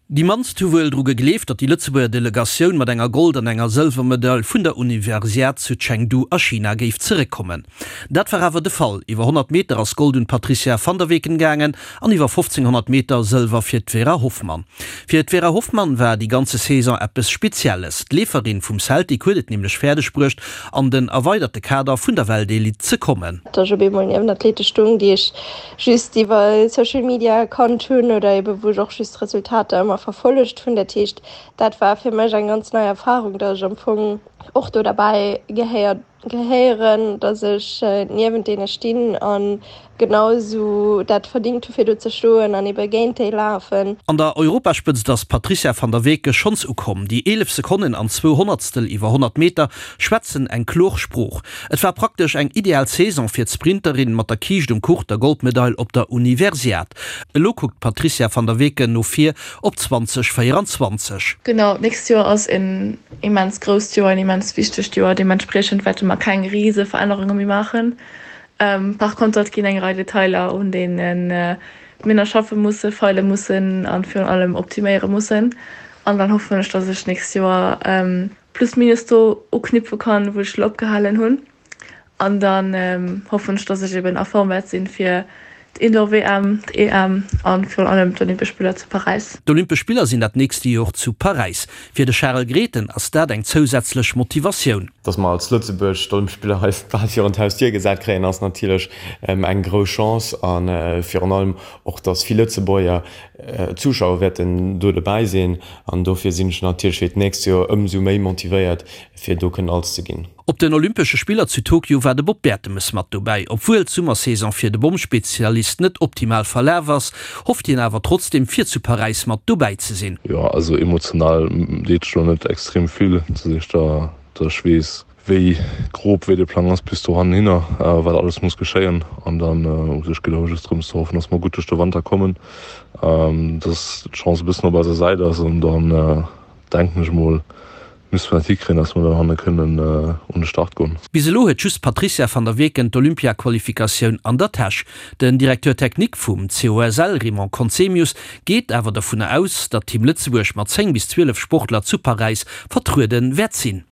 Déi mannst hu wuel dru gegleeft, datt déi Lëtzebuerger Delegatioun mat enger Gold an enger Sëlwermedail vun der Universiad zu Chengdu a China géif zeréckkommen. Dat war awer de Fall. Iwwer 100 Meter ass Gold un d'Patrizia van der Weken gaangen an iwwer 1500 Meter Sëlwer fir d'Vera Hoffmann. Fir d'Vera Hoffmann war déi ganze Saison eppes Spezielles. D'Leeferin vum Celtic huet et nämlech fäerdeg bruecht, an den erweiderte Kader vun der Weltelite ze kommen. Datt ech op eemol niewent Athlete stung, déi ech just iwwer Social Media kannt hunn oder ebe wou ech och just d'Resultater ëmmer verfollegt hunn. Dat heescht, dat war fir mech eng ganz nei Erfarung, datt ech am Fong och do derbäi gehéiert gehéieren, datt ech niewent deene stinn a genau esou dat verdingt hu fir do ze stoen an ebe géint déi lafen. An der Europaspëtzt ass d'Patrizia van der Weken schonns ukomm. Déi 11 Sekonnen an zwou Honnertstel iwwer 100 Meter schwätzen eng klor Sprooch. Et war praktesch eng ideal Saison fir d'Sprinterin mat der Kiischt um Kuch, der Goldmedail op der Universiad. Elo kuckt d'Patrizia van der Weken no vir op 2024. Genau, d'nächst Joer ass en immens grousst Joer, en immens wichtegt Joer. Deementspriechend wäerte mer keng rise Verännerunge méi maachen. Par konter, et ginn eng Rei Detailer, un deene mir nach schaffe musse, feile mussen a virun allem optiméiere mussen. An dann hoffen ech, dass ech d'nächst Joer plus minus do uknüpfe kann, wou ech elo opgehalen hunn. An dann hoffen ech, dass ech eben a Form wäert sinn fir d'Indoor-WM, d'EM a virun allem d'Olympesch Spiller zu Paräis. D'Olympesch Spiller sinn dat nächste Jor zu Paräis. Fir de Charel Grethen ass dat eng zousätzlech Motivatioun. Dass mer als Lëtzebuerg d'Olympesch Spiller hei bal virun d'Hausdier gesat kréien, ass natierlech eng grouss Chance a virun allem och, dass vill Lëtzebuerger Zuschauer wäerten do dobäi sinn an dofir sinn ech natierlech fir d'nächst Joer ëmsou méi motivéiert, fir do kënnen alles ze ginn. Op den Olympesche Spiller zu Tokio war de Bob Bertemes mat dobäi. Obwuel d'Summersaison fir de Bommspezialist net optimal verlaf ass, hofft hien awer trotzdeem fir zu Paräis mat dobäi ze sinn. Jo also emotional deet sech lo net extrem vill, dass ech da dass ech weess wéi grob wéi de Plang ass bis dohanhinner, wat alles muss geschéien an dann u sech geet et just drëms ze hoffen, dass mer gutt duerch de Wanter kommen, dass d'Chance e bëssen op eiser Säit ass an dann denken ech mol misste mer dat hikréien, dass mer dann hanne kënnen un de Start goen. Bis elo huet just d'Patrizia van der Weken d'Olympia-Qualifikatioun an der Täsch. Den Directeur technique vum COSL, Raymond Conzemius, geet awer dovunner aus, datt Team Lëtzebuerg mat 10 bis 12 Sportler zu Paräis vertruede wäert sinn.